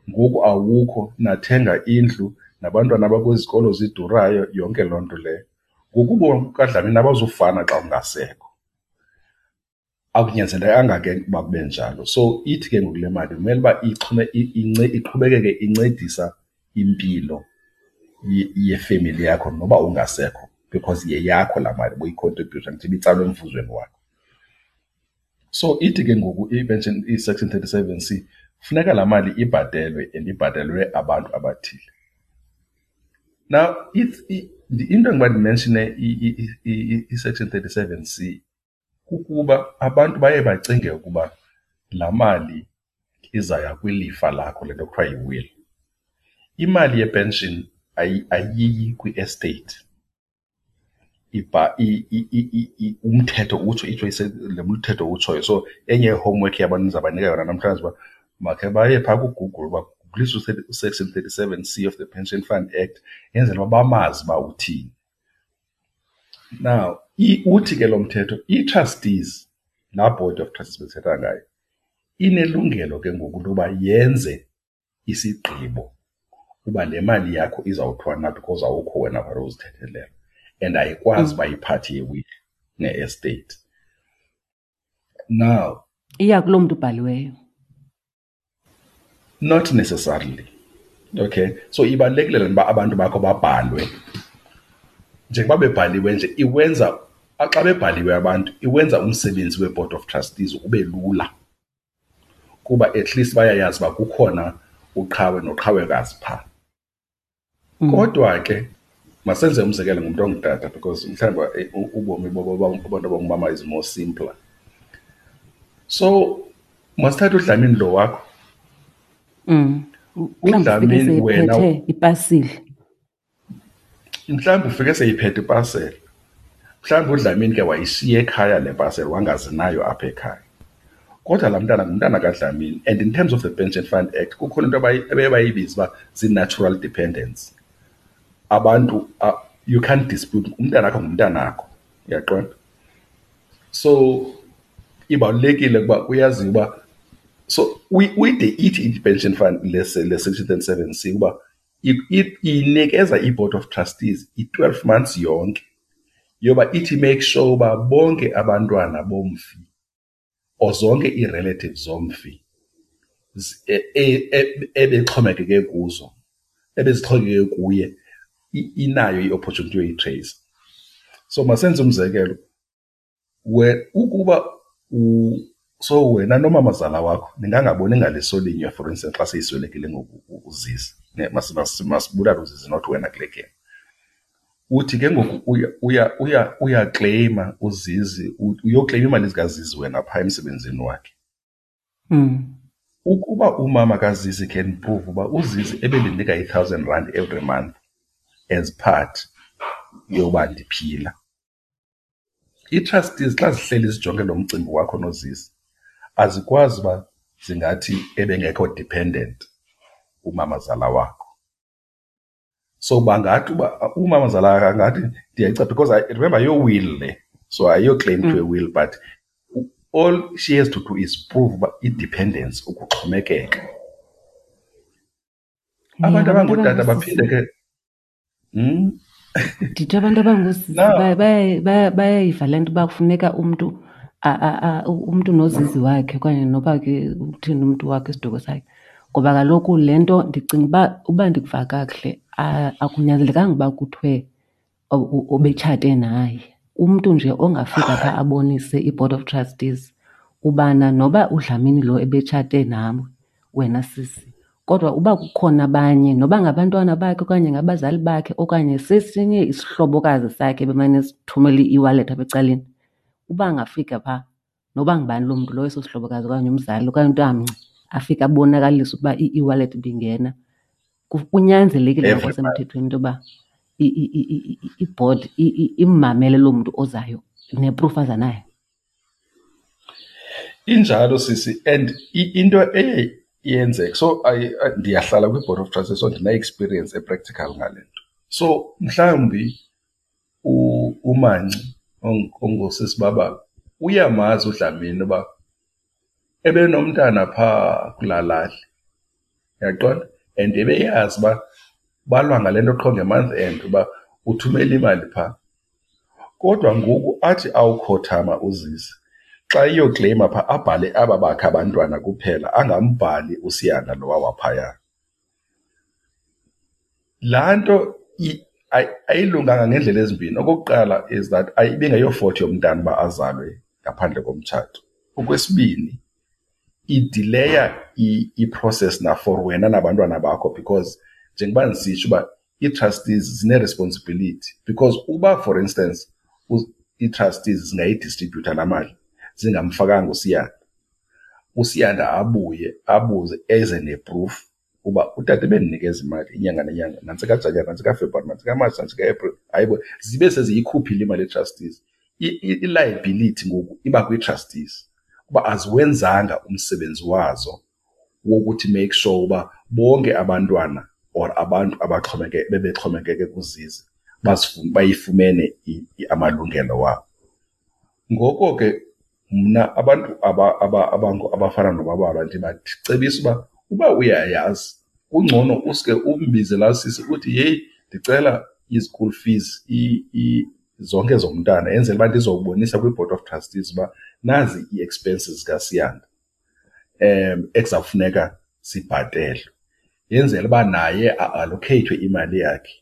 Ngoku awukho, nathenga indlu nabantwana abakwizikolo zidurayo, yonke loo nto leyo. Ngoku ubomi bukaDlamini abazufana xa ungasekho. Akunyanzelekanga ke uba kube njalo. So ithi ke ngoku le mali kumele uba iqhubekeke incedisa impilo yefemeli yakho noba ungasekho, because yeyakho laa mali ubuyikhontribhutha, ndithi ibitsalwe emvuzweni wakho. So ithi ke ngoku i-pension, i-Section 37C, funeka laa mali ibhatelwe and ibhatelwe abantu abathile. Now, into endiba ndimenshine i-Section 37C kukuba abantu baye bacinge ukuba laa mali izaya kwilifa lakho, le nto kuthiwa yi-will. Imali yepension ayiyi kwi-estate. Umthetho utsho, itsho le mthetho utshoyo. So enye ye-homework yabantu ndizabanika yona namhlanje uba makhe baye phaa kuGoogle baguglise uSection 37C of the Pension Fund Act, yenzele uba bamazi uba uthini. Now, uthi ke lo mthetho, ii-trustees, laa board of trustees besithetha ngayo, inelungelo ke ngoku loba yenze isigqibo uba le mali yakho izawuthiwa na because awukho wena for uzithethelela and ayikwazi uba iphathi ye-will ne-estate. Now iya kuloo mntu ubhaliweyo. Not necessarily. Okay, so ibalulekile le nto uba abantu bakho babhalwe. Njengoba bebhaliwe nje iwenza, xa bebhaliwe abantu iwenza umsebenzi we-board of trustees ube lula, kuba at least bayayazi uba kukhona uqhawe noqhawekazi phaa. Kodwa ke masenze umzekelo ngumntu ongutata because mhlawumbi ubomi babantu abangumama is more simpler. So masithathe uDlamini lo wakho. UDlamini wena ipasile. Mhlawumbi ufike seyiphethe ipasele. Mhlawumbi uDlamini ke wayishiya ekhaya le pasele, wangazinayo apha ekhaya. Kodwa laa mntana ngumntana kaDlamini, and in terms of the Pension Fund Act kukhona into abaye bayibiza uba zii-natural dependents. Abantu, you can't dispute, umntanakho ngumntanakho, uyaqonda? So ibalulekile ukuba uyazi uba, so uyide ithi i-Pension Fund le section 37C uba inikeza i-Board of Trustees i-12 months yonke yoba ithi make sure uba bonke abantwana bomfi or zonke ii-relatives zomfi ebexhomekeke kuzo, ebezixhomekeke kuye, inayo i-opportunity yoyitrace. So masenze umzekelo, ukuba so wena nomamazala wakho ningangaboni ngaliso linye, for instance xa seyiswelekile ngoku uZizi, masibulale uZizi not wena kule game. Uthi ke ngoku uyakleyima uZizi, uyokleyima imali zikaZizi wena phaa emsebenzini wakhe. Ukuba umama kaZizi can prove uba uZizi ebendinika i-1,000 rand every month as part yoba ndiphila, ii-trustees xa zihleli zijonge lo mcimbi wakho noZizi azikwazi uba zingathi ebengekho dependent umamazala wakho. So bangathi uba umamazala wakho angathi ndiyayica, because I remember your will le, so ayiyo claim to a will, but all she has to do is prove uba i-dependence, ukuxhomekeka. Abantu abangootata baphinde ke Ndithi abantu abangoosisi bayayiva le nto uba kufuneka umntu umntu nozizi wakhe okanye noba ke uthini umntu wakhe, isiduko sakhe. Ngoba kaloku le nto ndicinga uba ndikuva kakuhle, akunyanzelekanga uba kuthiwe obetshate naye. Umntu nje ongafika phaa abonise i-board of trustees ubana noba uDlamini lo ebetshate nawe wena sisi, kodwa uba kukhona abanye noba ngabantwana bakhe okanye ngabazali bakhe okanye sesinye isihlobokazi sakhe bemane sithumela i-e-wallet apha ecaleni, uba angafika phaa noba ngubani loo mntu lowo, eso sihlobokazi okanye umzali okanye umntu afike abonakalise ukuba i-e-wallet ibingena, kunyanzelekile ngokwasemthethweni into yoba ibhodi immamele loo mntu ozayo neproof aza nayo. Injalo sisi, and into eye yenzeka, so ndiyahlala kwi-board of trustees, so ndine-experience e-practical ngale nto. So mhlawumbi uManci ongusisi Babalo uyamazi uDlamini uba ebenomntana phaa kulaa lali, uyaqonda? And ebeyazi uba balwa ngale nto qho nge-month end uba uthumela imali phaa. Kodwa ngoku athi awukhothama uZizi, xa iyokleyima phaa abhale aba bakhe abantwana kuphela, angambhali uSiyanda lowa waphaya. Laa nto ayilunganga ngeendlela ezimbini. Okokuqala is that ibingeyofault yomntana uba azalwe ngaphandle komtshato. Okwesibini, idileya i-process na for wena nabantwana bakho, because njengoba ndisitsho uba ii-trustees zine-responsibility, because uba for instance ii-trustees zingayidistribhutha laa mali zingamfakanga uSiyanda, uSiyanda abuye abuze eze ne-proof uba utata ebendinikeza imali inyanga nenyanga, nantsi kaJanuwari, nantsi kaFebruwari, nantsi kaMatshi, nantsi kaApril, hayibo, zibe seziyikhuphile imali ye-trustees. I-liability ngoku iba kwii-trustees kuba aziwenzanga umsebenzi wazo wokuthi make sure uba bonke abantwana or abantu bebexhomekeke kuZizi bayifumene amalungelo wabo. Ngoko ke mna abantu abafana noBabalwa ndibacebisa uba uyayazi Kungcono uske umbize laa sisi uthi, yeyi, ndicela i-school fees zonke zomntana, yenzela uba ndizobonisa kwi-board of trustees uba nazi ii-expenses zikaSiyanda ekuzawufuneka sibhatelwe. Yenzela uba naye a-allokheyithwe imali yakhe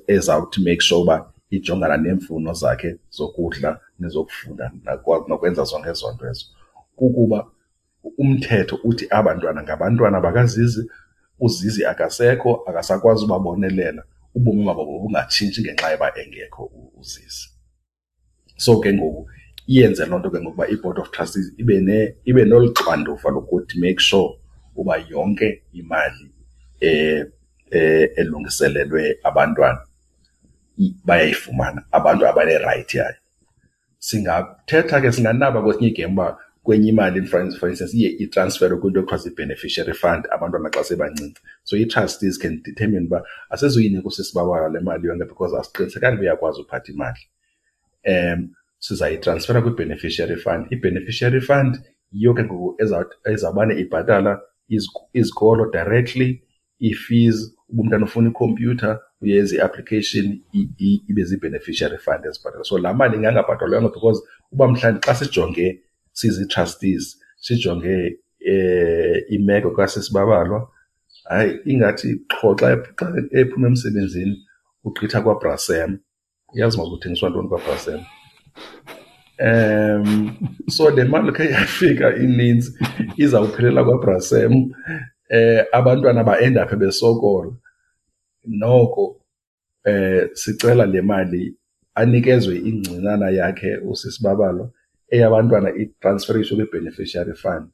ezawuthi make sure uba ijongana neemfuno zakhe zokudla nezokufunda nokwenza zonke ezo nto ezo. Kukuba umthetho uthi aba bantwana ngabantwana bakaZizi, uZizi akasekho, akasakwazi ubabonelela, ubomi babo bubungatshintshi ngenxa yoba engekho uZizi. So ke ngoku iyenze loo nto ke ngoku uba i-board of trustees ibe nolu xanduva lokuthi make sure uba yonke imali elungiselelwe abantwana bayayifumana, abantu abanerayithi yayo. Singathetha ke, singanaba kwesinye igame uba kwenye imali, for instance, iye itransferwe kwinto ekuthiwa zii-beneficiary fund abantwana xa sebancinci. So ii-trustees can determine uba asizuyinika usisi Babalwa le mali yonke because asiqinisekanga uba uyakwazi uphatha imali. Sizayitransfera kwi-beneficiary fund. I-beneficiary fund yiyo ke ngoku ezawubane ibhatala izikolo directly, ii-fees, uba umntana ufuna ikhompyutha uyenza i-application, ibe zii-beneficiary fund ezibhatala. So laa mali ingangabhatalwanga because uba mhlawumbi xa sijonge sizi-trustees, sijonge imeko kasisi Babalwa, hayi, ingathi qho xa ephuma emsebenzini ugqitha kwaBrasem. Uyazi uba kuthengiswa ntoni kwaBrasem? So le mali khe yafika ininzi izawuphelela kwaBrasem, abantwana ba-endaphe besokola. Noko sicela le mali anikezwe ingcinana yakhe usisi Babalwa, eyabantwana itransferishwe kwi-beneficiary fund,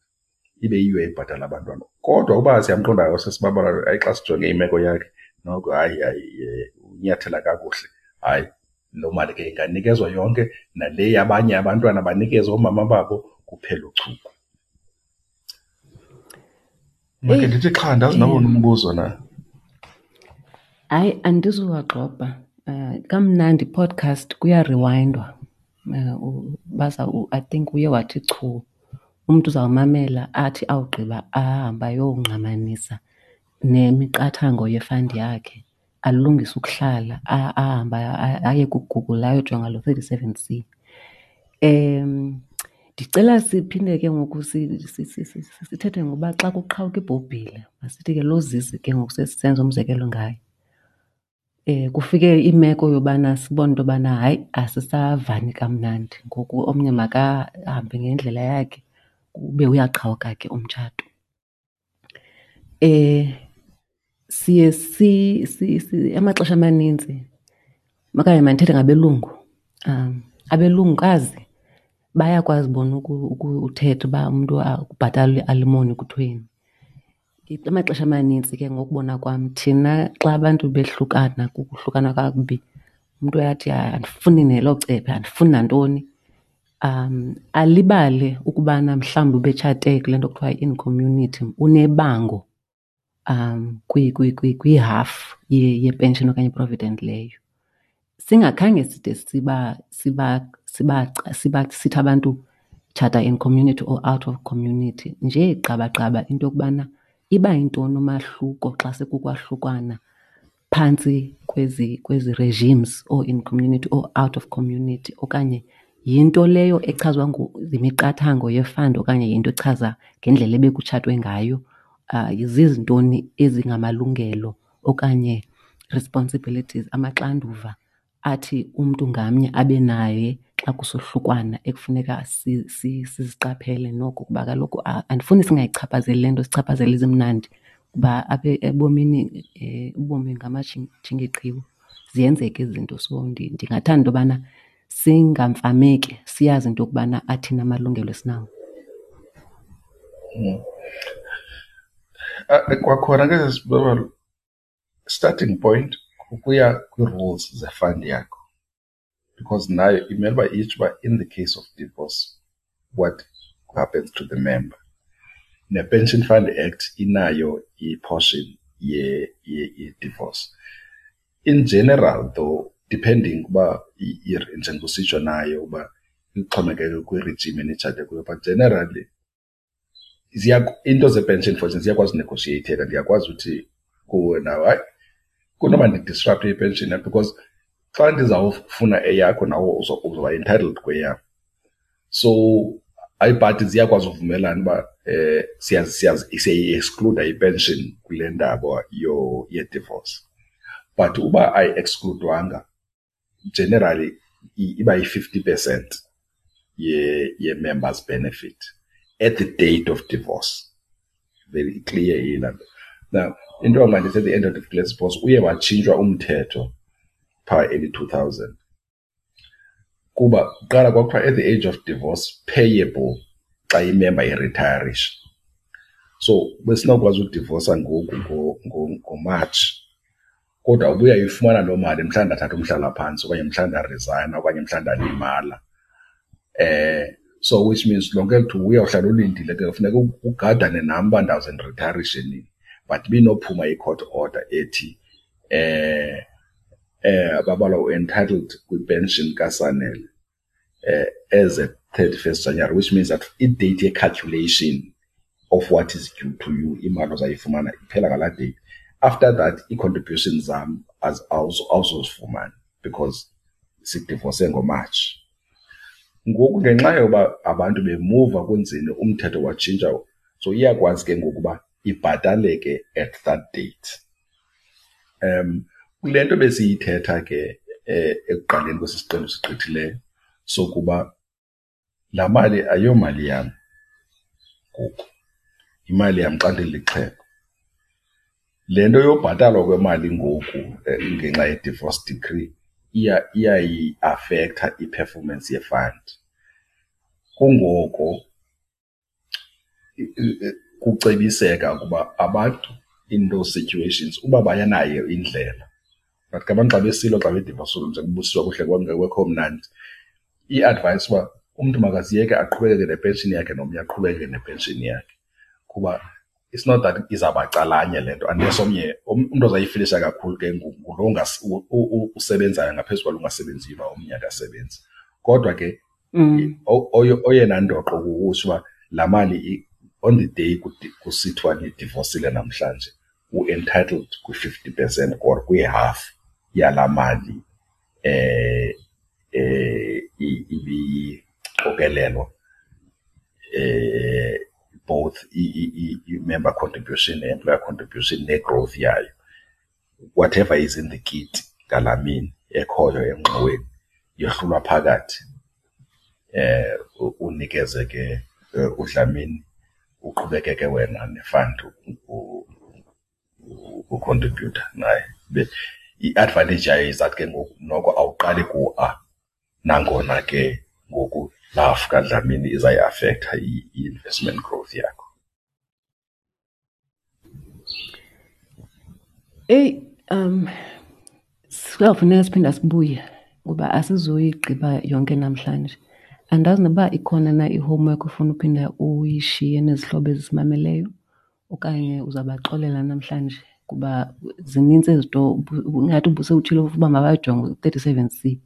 ibe yiyo ebhatala abantwana. Kodwa uba siyamqonda usisi Babalwa, hayi, xa sijonge imeko yakhe noko, hayi, hayi, unyathela kakuhle, hayi, loo mali ke inganikezwa yonke, nale yabanye abantwana banikezwe oomama babo, kuphele uchuku. Make ndithi xha, ndazi noba unombuzo na. Hayi, andizuwagxobha. Kamnandi podcast kuyarewindwa. Baza I think uye wathi chu, umntu uzawumamela athi awugqiba ahambe ayongqamanisa nemiqathango ye-fund yakhe, alungise ukuhlala, ahambe aye kuGoogle ayojonga lo 37C. Ndicela siphinde ke ngoku sithethe ngoba xa kuqhawuka ibhobhile, masithi ke loo Zizi ke ngoku sesisenza umzekelo ngaye. Kufike imeko yobana sibone into yobana hayi, asisavani kamnandi ngoku, omnye makahambe ngendlela yakhe, ube uyaqhawuka ke umtshato. Siye amaxesha amaninzi, okanye mandithethe ngabelungu, abelungukazi bayakwazi bona ukuthetha uba umntu kubhatalwa i-alimony kuthweni. Amaxesha amanintsi ke ngokubona kwam thina xa abantu behlukana, kukuhlukana kakubi, umntu uyathi andifuni nelo cephe, andifuni nantoni. Alibale ukubana mhlawumbi ubetshate kule nto kuthiwa yi-in community, unebango kwihafu yepenshini okanye i-provident leyo. Singakhange side sithi abantu tshata in community or out of community, nje gqabagqaba into yokubana iba yintoni umahluko xa sekukwahlukwana phantsi kwezi regimes, or in community or out of community, okanye yinto leyo echazwa yimiqathango ye-fund okanye yinto echaza ngendlela ebekutshatwe ngayo. Zizintoni ezingamalungelo okanye responsibilities, amaxanduva athi umntu ngamnye abe naye xa kusohlukwana ekufuneka siziqaphele noko, kuba kaloku andifuni singayichaphazeli le nto, sichaphazele ezimnandi, kuba apha ebomini ubomi ngamajingeqhiwu, ziyenzeka ezi zinto. So ndingathanda into yobana singamfameki, siyazi into yokubana athini amalungelo esinawo. Kwakhona ke sisi, starting point kukuya kwii-rules ze-fund yakho, because nayo imele uba itsho uba in the case of divorce what happens to the member. Ne-Pension Fund Act inayo i-portion ye-divorce. In general though, depending uba njengokusitsho nayo uba ixhomekeke kwi-regime enitshate kuyo, but generally Into ze-pension, for instance, ziyakwazi unegoshiyeyitheka. Ndiyakwazi uthi kuwe nawe, hayi, kunoba ndidisrapte i-pension yam because xa ndizawufuna eyakho nawe uzoba entitled kweyam. So iibhadi ziyakwazi uvumelana uba siyayi-excluda i-pension kule ndaba ye-divorce. But uba ayi-excludwanga, generally iba yi-50% ye-members benefit at the date of divorce. Very clear yilaa nto. Now, into yoba mandithi at the end of the divorce, uye watshintshwa umthetho phaa early 2000. Kuba kuqala kwakuthiwa at the age of divorce payable xa imemba iritayarisha. So besinokwazi udivosa ngoku ngoMatshi, kodwa ubuya uyifumana loo mali mhla ndathatha umhlalaphantsi okanye mhla ndarizayina okanye mhla ndalimala. So which means lonke eli thuba uyawuhlala ulindile ke, funeka ugadane nam uba ndawuze ndiritayarishe nini. But ibinophuma i-court order ethi Babalwa u-entitled kwi-pension kaSanele as at 31st January, which means that i-date ye-calculation of what is due to you, imali ozayifumana iphela ngalaa date. After that, ii-contributions zam awuzozifumana because sidivose ngoMatshi. Ngoku ngenxa yoba abantu bemuva kunzini, umthetho watshintsha, so iyakwazi ke ngoku uba ibhataleke at that date. Kule nto besiyithetha ke ekuqaleni kwesi siqendu sigqithileyo sokuba laa mali ayomali yam ngoku, yimali yam xa ndilixhego. Le nto yobhatalwa kwemali ngoku ngenxa ye-divorce decree iyayiafektha i-performance ye-fund. Kungoko kucebiseka ukuba abantu in those situations uba bayanayo indlela, but ke abantu xa besilwa xa bedivosile njengoba kuhle kungekho mnandi, i-advice uba umntu makaziyeke aqhubekeke nepenshini yakhe nomnye aqhubekeke nepenshini yakhe, kuba it's not that izawuba calanye le nto unless omnye umntu ozayifilisha kakhulu ke ngulo usebenzayo ngaphezu kwalo ungasebenziyo uba omnye akasebenzi. Kodwa ke oyena ndoqo kukutsho uba laa mali on the day kusithiwa nidivosile namhlanje, u-entitled kwi-50% or kwi-half yalaa mali ibiqokelelwa, both i-member contribution ne-employer contribution ne-growth yayo. Whatever is in the kitty ngalaa mini ekhoyo engxoweni yohlulwa phakathi, unikeze ke uDlamini, uqhubekeke wena ne-fund ukhontribhutha naye. I-advantage yayo is that ke ngoku noko awuqali ku-A, nangona ke ngoku laa half kaDlamini izayiafektha i-investment growth yakho. Eyi, kuyawufuneka siphinda sibuye ngoba asizoyigqiba yonke namhlanje. Andazi noba ikhona na i-homework ofuna uphinda uyishiye nezihlobo ezisimameleyo okanye uzabaxolela namhlanje, kuba zinintsi ezi zinto ingathi ubusewutshilo uba mabajonge u-37C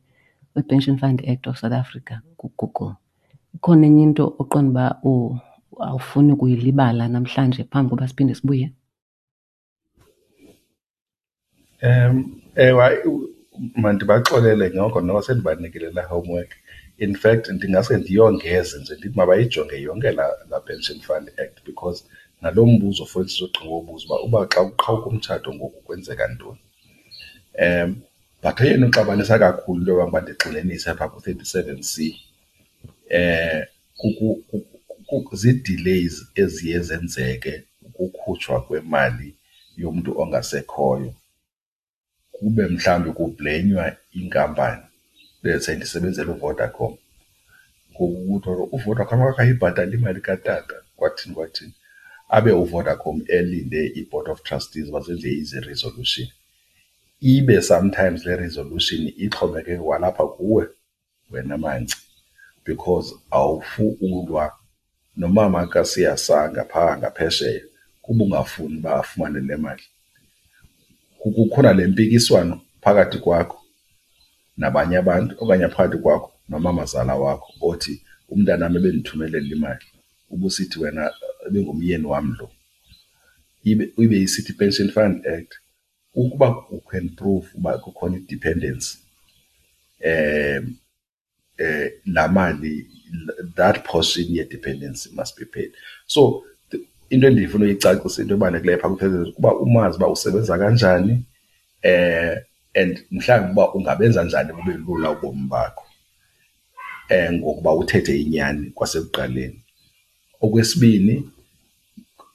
wePension Fund Act of South Africa kuGoogle. Ikhona enye into oqonda uba awufuni kuyilibala namhlanje phambi koba siphinde sibuye? Ewe, mandibaxolele noko noba sendibanikile laa homework. In fact, ndingase ndiyongeze nje ndithi mabayijonge yonke laa Pension Fund Act, because nalo mbuzo for instance ogqiba ubuza uba xa kuqhawuka umtshato ngoku kwenzeka ntoni. But eyona ixabanisa kakhulu into yoba uba ndigxininise apha ku-37C zii-delays eziye zenzeke ukukhutshwa kwemali yomntu ongasekhoyo, kube mhlawumbi kublenywa inkampani. Let's say ndisebenzela uVodacom, ngoku kuthiwa uVodacom akayibhatali imali katata, kwathini kwathini, abe uVodacom elinde i-board of trustees uba zenze izi-resolution. Ibe sometimes le resolution ixhomekeke kwalapha kuwe wena Manci, because awufukulwa nomama kaSiyasanga phaa ngaphesheya kuba ungafuni uba afumane le mali. Kukhona le mpikiswano phakathi kwakho nabanye abantu okanye phakathi kwakho nomamazala wakho othi umntanam ebendithumelela imali, ubusithi wena ebengumyeni wam lo. Ibe isithi i-Pension Fund Act ukuba you can prove uba kukhona i-dependency laa mali, that portion ye-dependency must be paid. So into endifuna uyicacisa, into ebalulekileyo phaa kuba umazi uba usebenza kanjani and mhlawumbi uba ungabenza njani bube lula ubomi bakho ngokuba uthethe inyani kwasekuqaleni. Okwesibini,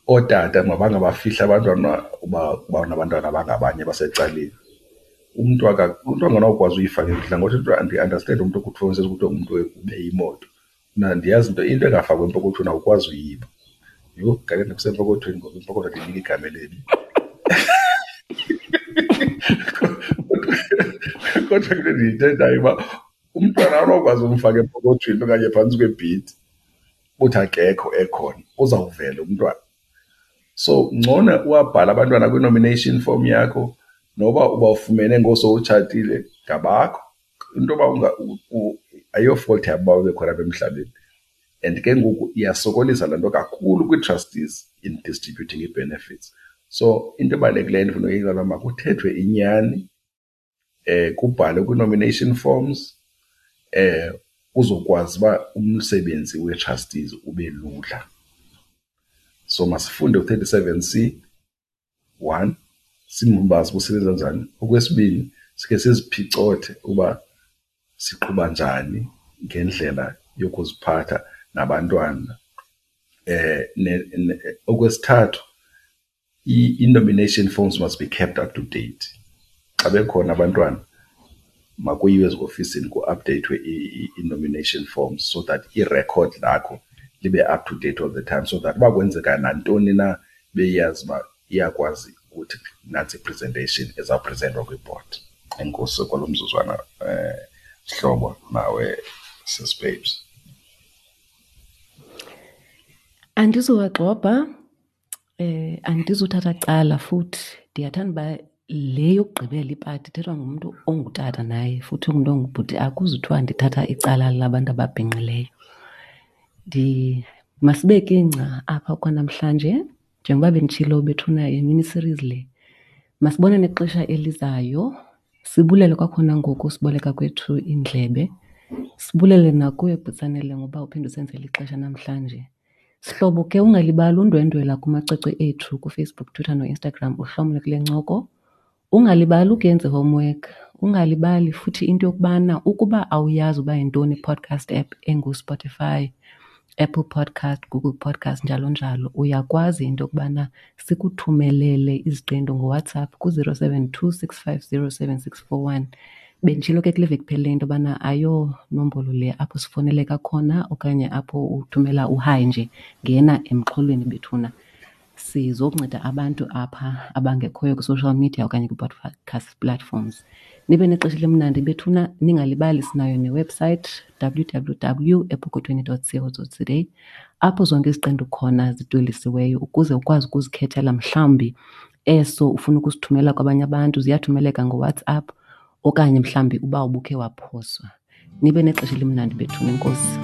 ootata mabangabafihli abantwana uba banabantwana abangabanye abasecaleni. Umntu umntu anganawukwazi uyifaka imfihlo ngothi into andiandastendi umntu kuthiwa kuthiwa ngumntu ube imoto. Mna ndiyazi into engafakwa empokothweni awukwazi uyiba. Yho, kanene kusempokothweni ngoku, impokotho ndiyinika igama elibi. Kodwa ke ndiyithethayo uba umntwana awunokwazi umfaka empokothweni okanye phantsi kwebhedi uthi akekho ekhona, uzawuvela umntwana. So ngcono uwabhale abantwana kwi-nomination form yakho noba ubafumene ngosowutshatile, ngabakho. Into yoba ayiyo-fault yabo uba bekhona apha emhlabeni. And ke ngoku iyasokolisa laa nto kakhulu kwii-trustees in distributing ii-benefits. So into ebalulekileyo endifuna uyixela, makuthethwe inyani, kubhalwe kwii-nomination forms, kuzokwazi uba umsebenzi wee-trustees ube lula. So masifunde u-37 C one, simbazi uba usebenza njani. Okwesibini, sikhe siziphicothe uba siqhuba njani ngendlela yokuziphatha nabantwana. Okwesithathu, i-nomination forms must be kept up to date. Xa bekhona abantwana makuyiwe eziofisini kuapdeyithwe i-nomination forms so that irekhodi lakho libe up to date all the time, so that uba kwenzeka nantoni na beyazi uba iyakwazi ukuthi nantsi i-presentation ezawuprezentwa kwibhodi. Enkosi kwalo mzuzwana sihlobo, nawe sis Babes. Andizuwagxobha, andizuthatha cala futhi. Ndiyathanda uba le yokugqibela ipati ithethwa ngumntu ongutata naye futhi ungumntu ongubhuti, akuzuthiwa ndithatha icala labantu ababhinqileyo. Masibeke ingca apha kwanamhlanje, njengoba benditshilo bethuna yimini series le. Masibonane kwixesha elizayo. Sibulele kwakhona ngoku siboleka kwethu iindlebe. Sibulele nakuwe Bhutsanele ngoba uphinde usenzele ixesha namhlanje. Sihlobo ke, ungalibali undwendwela kumacwecwe ethu kuFacebook, Twitter noInstagram uhlomle kule ncoko. Ungalibali ukuyenza i-homework. Ungalibali futhi into yokubana ukuba awuyazi uba yintoni i-podcast app enguSpotify, Apple Podcast, Google Podcast, njalo njalo, uyakwazi into yokubana sikuthumelele iziqendu ngoWhatsApp ku-072 650 7641. Benditshilo ke kule veki iphelileyo into yobana ayonombolo le apho sifoneleka khona okanye apho uthumela uhayi nje, ngena emxholweni bethuna. Sizokunceda abantu apha abangekhoyo kwi-social media okanye kwi-podcast platforms. Nibe nexesha elimnandi bethuna, ningalibali sinayo ne-website www.epokothweni.co.za apho zonke iziqendu khona zidwelisiweyo ukuze ukwazi ukuzikhethela mhlawumbi eso ufuna ukusithumela kwabanye abantu, ziyathumeleka ngoWhatsApp okanye mhlawumbi uba ubukhe waphoswa. Nibe nexesha elimnandi bethuna, enkosi.